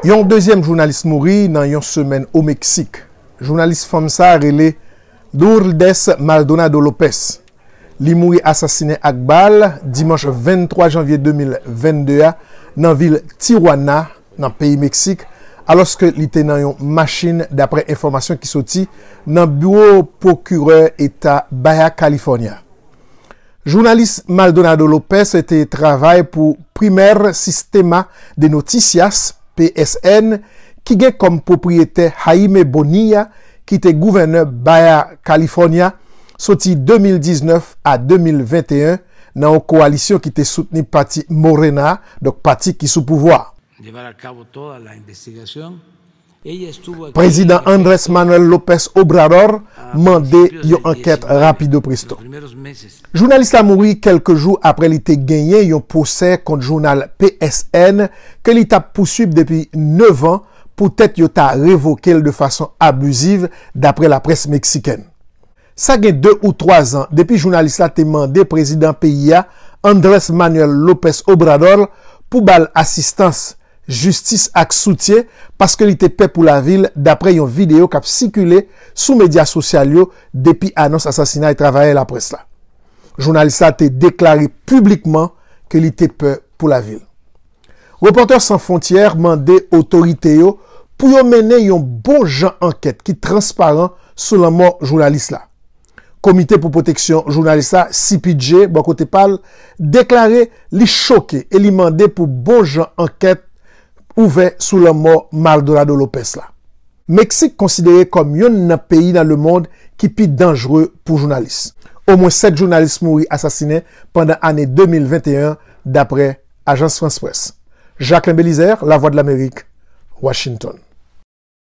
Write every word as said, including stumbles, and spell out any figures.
Yon dezyèm jounalis mouri nan yon semèn o Meksik. Jounalis fanm sa rele Lourdes Maldonado Lopez. Li mouri asasinen ak bal dimanch venntwa janvye de mil vennde a nan vil Tijuana, nan peyi Meksik, alòske li te nan yon machin, dapre enfòmasyon ki soti nan biwo pwokirè eta Baja California. Jounalis Maldonado Lopez te travay pou Primer Sistema de Noticias, P S N, ki gen kòm pwopriyetè Jaime Bonilla, ki te gouvènè Baja California soti de mil diznèf a de mil venteyen nan yon kowalisyon ki te soutni pati Morena, donk pati ki sou pouvwa. Llevar a cabo toda la investigación. Ella estuvo aquí Prezidan en Andrés Manuel López Obrador mande yon ankèt rapido presto. Jounalis la mouri kèlke jou apre li te genyen yon pwosè kont jounal P S N ke li t ap pouswib depi nèf an poutèt yo ta revoke l de fason abiziv, dapre laprès meksikèn. Sa gen de ou twa zan depi jounalis la te mande prezidan peyi a, Andrés Manuel López Obrador, pou ba l asistans, jistis ak soutyen paske li te pè pou lavi l, dapre yon videyo k ap sikile sou medya sosyal yo depi anons asasinay travayè laprès la. Jounalis la te deklare piblikman ke li te pè pou lavi l. Repòtè San Fwontyè mande otorite yo pou yo mennen yon bon jan ankèt ki transparan sou lanmò jounalis la. Komite pou Pwoteksyon Jounalis la, C P J, bò kote pa l, deklare li choke e li mande pou bon jan ankèt ouvè sou lanmò Maldonado Lopez la. Meksik konsidere kòm youn nan peyi nan lemonn ki pi danjre pou jounalis. Omwen sèt jounalis mouri asasinen pandan ane de mil venteyen, dapre Ajans Frans Près. Jacquelin Belizaire, Lavwadlamerik, Washington.